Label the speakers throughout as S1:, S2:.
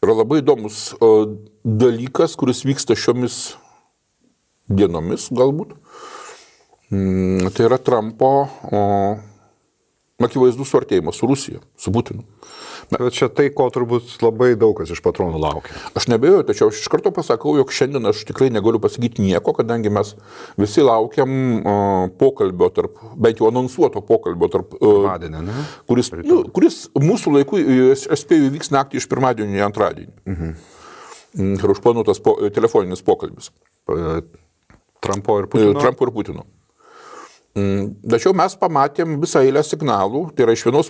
S1: yra labai įdomus dalykas, kuris vyksta šiomis dienomis galbūt. Tai yra Trumpo akivaizdus suartėjimas su Rusija, su Putinu.
S2: Bet čia tai, ko turbūt labai daug kas iš patronų laukia.
S1: Aš nebejoju, tačiau aš iš karto pasakau, jog šiandien aš tikrai negaliu pasakyti nieko, kadangi mes visi laukiam pokalbio tarp, bent jau anonsuoto pokalbio tarp, kuris mūsų laiku, aš spėju, vyks naktį iš pirmadienio į antradienį. Ir užplanuotas telefoninis pokalbis.
S2: Trampo ir Putino.
S1: Tačiau mes pamatėm visą eilę signalų, tai yra iš vienos,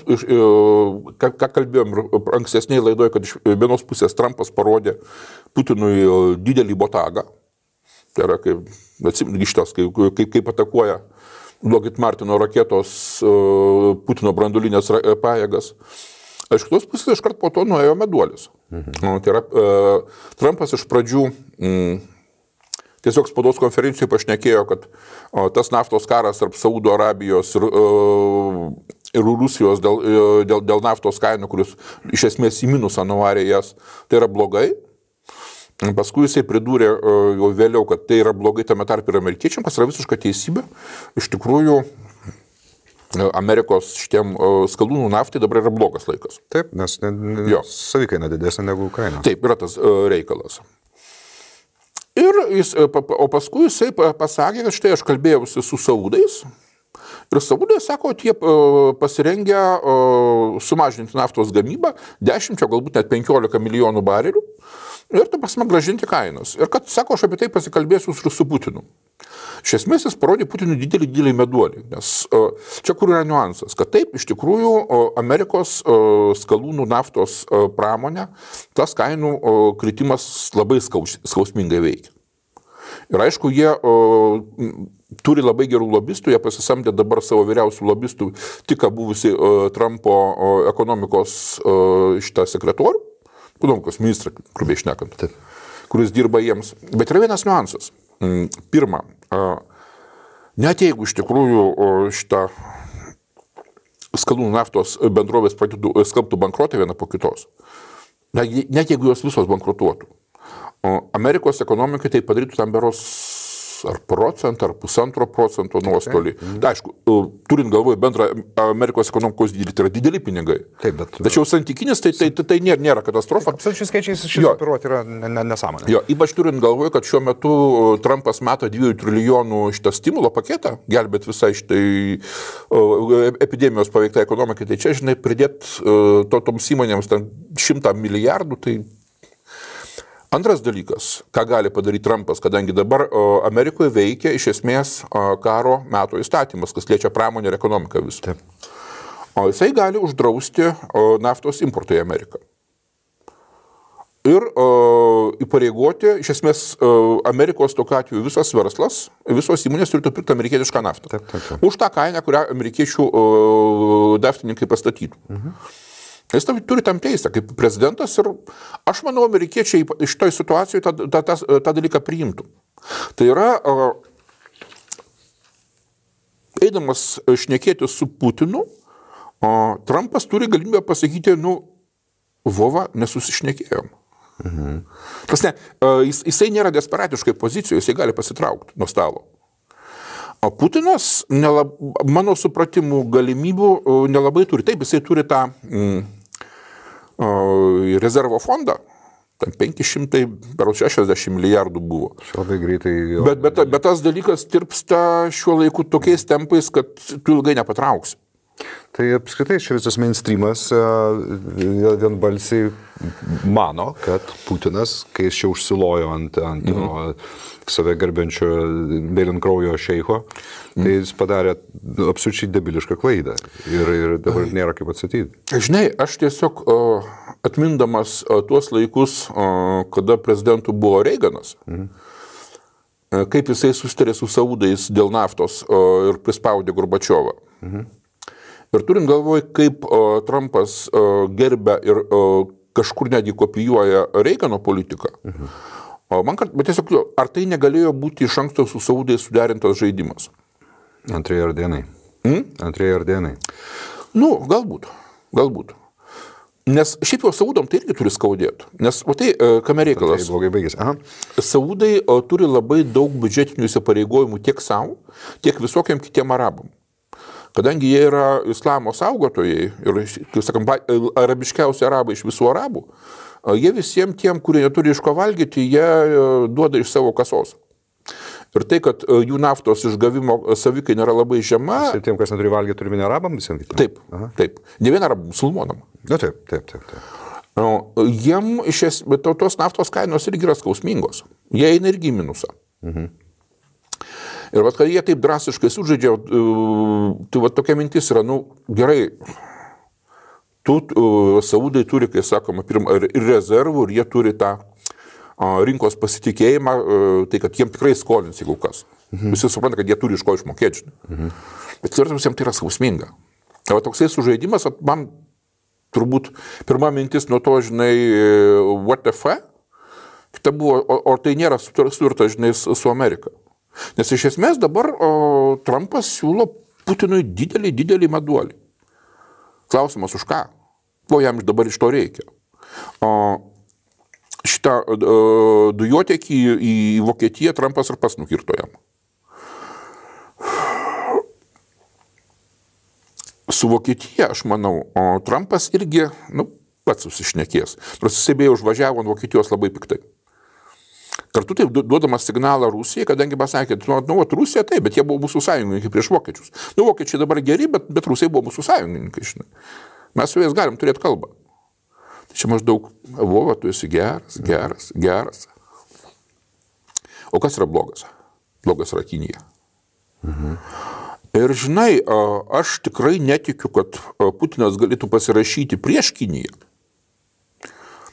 S1: ką kalbėjom ankstesnėje laidoje, kad iš vienos pusės Trumpas parodė Putinui didelį botagą, tai yra kaip atakuoja Lockheed Martino raketos Putino branduolinės pajėgas. Iš kitos pusės iškart po to nuėjo meduolis. Tai yra Trumpas iš pradžių tiesiog spaudos konferencijoje pašnekėjo, kad tas naftos karas tarp Saudo Arabijos ir Rusijos dėl naftos kainų, kuris iš esmės į minusą nuvarė jas, tai yra blogai. Paskui jisai pridūrė jau vėliau, kad tai yra blogai tame tarp ir amerikiečiam, kas yra visiška teisybė. Iš tikrųjų, Amerikos šitiem skalūnų naftai dabar yra blogas laikas.
S2: Taip, nes savikaina didesnė negu kaina.
S1: Taip, yra tas reikalas. O paskui jisai pasakė, kad štai aš kalbėjausi su saudais ir saudai sako, kad jie pasirengę sumažinti naftos gamybą 10, galbūt net 15 milijonų barelių ir ta prasme grąžinti kainas. Ir kad, sako, aš apie tai pasikalbėsiu su Putinu. Iš esmės jis parodė Putinui didelį meduolį, nes čia kur yra niuansas, kad taip, iš tikrųjų, Amerikos skalūnų naftos pramonė, tas kainų kritimas labai skausmingai veikia. Ir aišku, jie turi labai gerų lobistų, jie pasisamdė dabar savo vyriausių lobistų, tik buvusi Trumpo ekonomikos šitą sekretorių, ekonomikos ministrą, grubiai šnekant, kuris dirba jiems. Bet yra vienas niuansas. Pirma, net jeigu iš tikrųjų šitą skalūnų naftos bendrovės skelbtų bankrotą vieną po kitos, net jeigu jos visos bankrutuotų, Amerikos ekonomikai tai padarytų tam beros ar procentą, ar 1,5% nuostolį. Tai aišku, turint galvoje bendrą Amerikos ekonomikos dydį, tai yra dideli pinigai.
S2: Taip, bet...
S1: Tačiau santykinis tai nėra katastrofa.
S2: Absoliučiai skaičiais šis operuoti yra nesąmonė.
S1: Jo, ypač turint galvoje, kad šiuo metu Trumpas meta 2 trilijonų šitą stimulo paketą, gelbėt visai šitai epidemijos paveiktai ekonomikai, tai čia, žinai, pridėt toms įmonėms 100 milijardų, tai... Antras dalykas, ką gali padaryti Trumpas, kadangi dabar Amerikoje veikia iš esmės karo meto įstatymas, kas liečia pramonę ir ekonomiką visą. O jisai gali uždrausti naftos importą į Ameriką. Ir įpareigoti, iš esmės, Amerikos tokiu atveju visas verslas, visos įmonės turėtų pirkti amerikietišką naftą.
S2: Taip.
S1: Už tą kainą, kurią amerikiečių naftininkai pastatytų. Jis turi tam teisę kaip prezidentas ir aš manau, amerikiečiai šitoj situacijoje tą dalyką priimtų. Tai yra, eidamas šnekėti su Putinu, Trumpas turi galimybę pasakyti, vova, nesusišnekėjom. Jisai nėra desperatiškai pozicijoje, jisai gali pasitraukti nuo stalo. O Putinas, mano supratimų galimybių nelabai turi. Taip, jisai turi tą rezervo fondą, ten 560 milijardų buvo.
S2: Labai greitai.
S1: Bet tas dalykas tirpsta šiuo laiku tokiais tempais, kad tu ilgai nepatrauksi.
S2: Tai apskritai čia visas mainstreamas vienbalsiai mano, kad Putinas, kai jis čia užsilojo ant save garbenčio mėlynkraujo šeicho, tai jis padarė absoliučiai debilišką klaidą ir dabar nėra kaip atsakyti.
S1: Žinai, aš tiesiog atmindamas tuos laikus, kada prezidentu buvo Reiganas, kaip jisai susitarė su saudais dėl naftos ir prispaudė Gorbačiovą. Ir turint galvoj, kaip Trumpas gerbia ir kažkur netgi kopijuoja Reigano politiką, bet tiesiog, ar tai negalėjo būti iš anksto su saudais suderintas žaidimas?
S2: Antrieji ardenai. Antrieji ardenai.
S1: Galbūt. Nes šiaip jau Saudam tai irgi turi skaudėti. Nes, o tai, kame reikalas?
S2: Tai blogai baigėsi. Aha.
S1: Saudai turi labai daug biudžetinių įsipareigojimų tiek savo, tiek visokiam kitiem arabam. Kadangi jie yra islamo saugotojai ir, kaip sakant, arabiškiausi arabai iš visų arabų, jie visiems tiem, kurie neturi iš ko valgyti, jie duoda iš savo kasos. Ir tai, kad jų naftos išgavimo savikai nėra labai žema.
S2: Ir tiem, kas neturi valgyti, turime ne arabam visiems?
S1: Taip, taip. Ne vien arabam, musulmonam.
S2: Na, taip.
S1: Jiem tos naftos kainos irgi yra skausmingos. Jie eina irgi į minusą. Ir kad jie taip drastiškai sužaidžia, tai tokia mintis yra, gerai, Saudai turi, kai sakoma, ir rezervų, ir jie turi tą rinkos pasitikėjimą, tai kad jiem tikrai skolins, jeigu kas. Visi supranta, kad jie turi iš ko išmokėti. Bet tvirtams jiems tai yra skausminga. O toksai sužaidimas, man turbūt pirma mintis nuo to, what the fuck, kita buvo, o tai nėra sutarta, su Amerika. Nes iš esmės dabar Trumpas siūlo Putinui didelį meduolį. Klausimas už ką? Ko jam dabar iš to reikia? Šitą dujotiekį į Vokietiją Trumpas ir pats nukirto jam. Su Vokietija, aš manau, Trumpas irgi, pats susišnekės. Nors jisai beje užvažiavo ant Vokietijos labai piktai. Kartu taip duodamas signalą Rusijai, kadangi pasakė, Rusija taip, bet jie buvo mūsų sąjungininkai prieš vokiečius. Vokiečiai dabar geri, bet Rusai buvo mūsų sąjungininkai, žinai. Mes su jais galim turėti kalbą. Tai čia maždaug, Vova, tu esi geras. O kas yra blogas? Blogas yra Kinija. Ir žinai, aš tikrai netikiu, kad Putinas galėtų pasirašyti prieš Kiniją.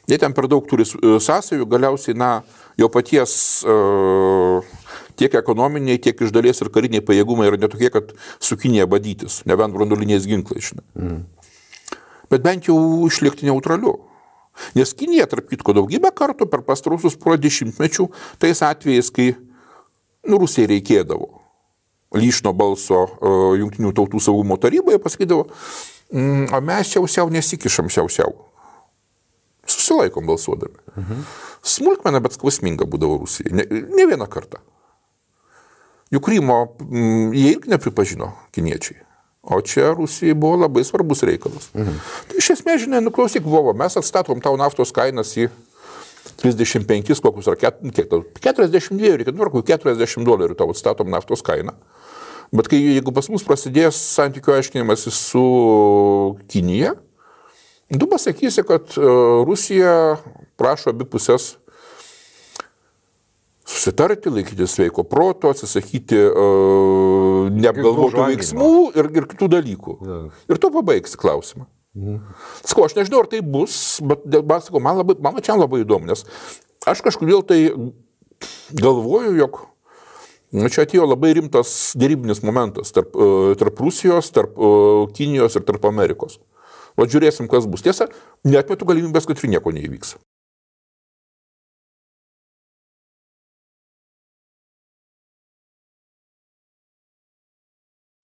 S1: Jie ten per daug turi sąsajų, galiausiai, jo paties tiek ekonominiai, tiek iš dalies ir kariniai pajėgumai yra netokie, kad su Kinija badytis, nebent branduoliniais ginklais. Bet bent jau išlikti neutraliu. Nes Kinija, tarp kitko, daugybę kartų per pastaruosius porą dešimtmečių, tais atvejais, kai Rusijai reikėdavo lyšno balso Jungtinių tautų saugumo taryboje, pasakydavo, o mes siausiau nesikišam siausiau. Susilaikom balsuodami. Smulkmena, bet skausminga būdavo Rusijai. Ne vieną kartą. Juk Krymo jie irgi nepripažino kiniečiai. O čia Rusijai buvo labai svarbus reikalas. Tai iš esmės, žinai, klausyk, Vovo, mes atstatom tau naftos kainas į 35, kokius ar 42, reikia $40 tau atstatom naftos kainą. Bet jeigu pas mus prasidės santykių aiškinimas su Kinija, tu pasakysi, kad Rusija prašo abi pusės susitarti, laikyti sveiko proto, atsisakyti neapgalvotų veiksmų ir kitų dalykų. Ir tu pabaigsi klausimą. Sakau, aš nežinau, ar tai bus, bet sakau, man čia labai įdomu, nes aš kažkodėl tai galvoju, jog čia atėjo labai rimtas derybinis momentas tarp Rusijos, tarp Kinijos ir tarp Amerikos. O žiūrėsim, kas bus. Tiesa, neatmetu galimybės, kad ir nieko neįvyks.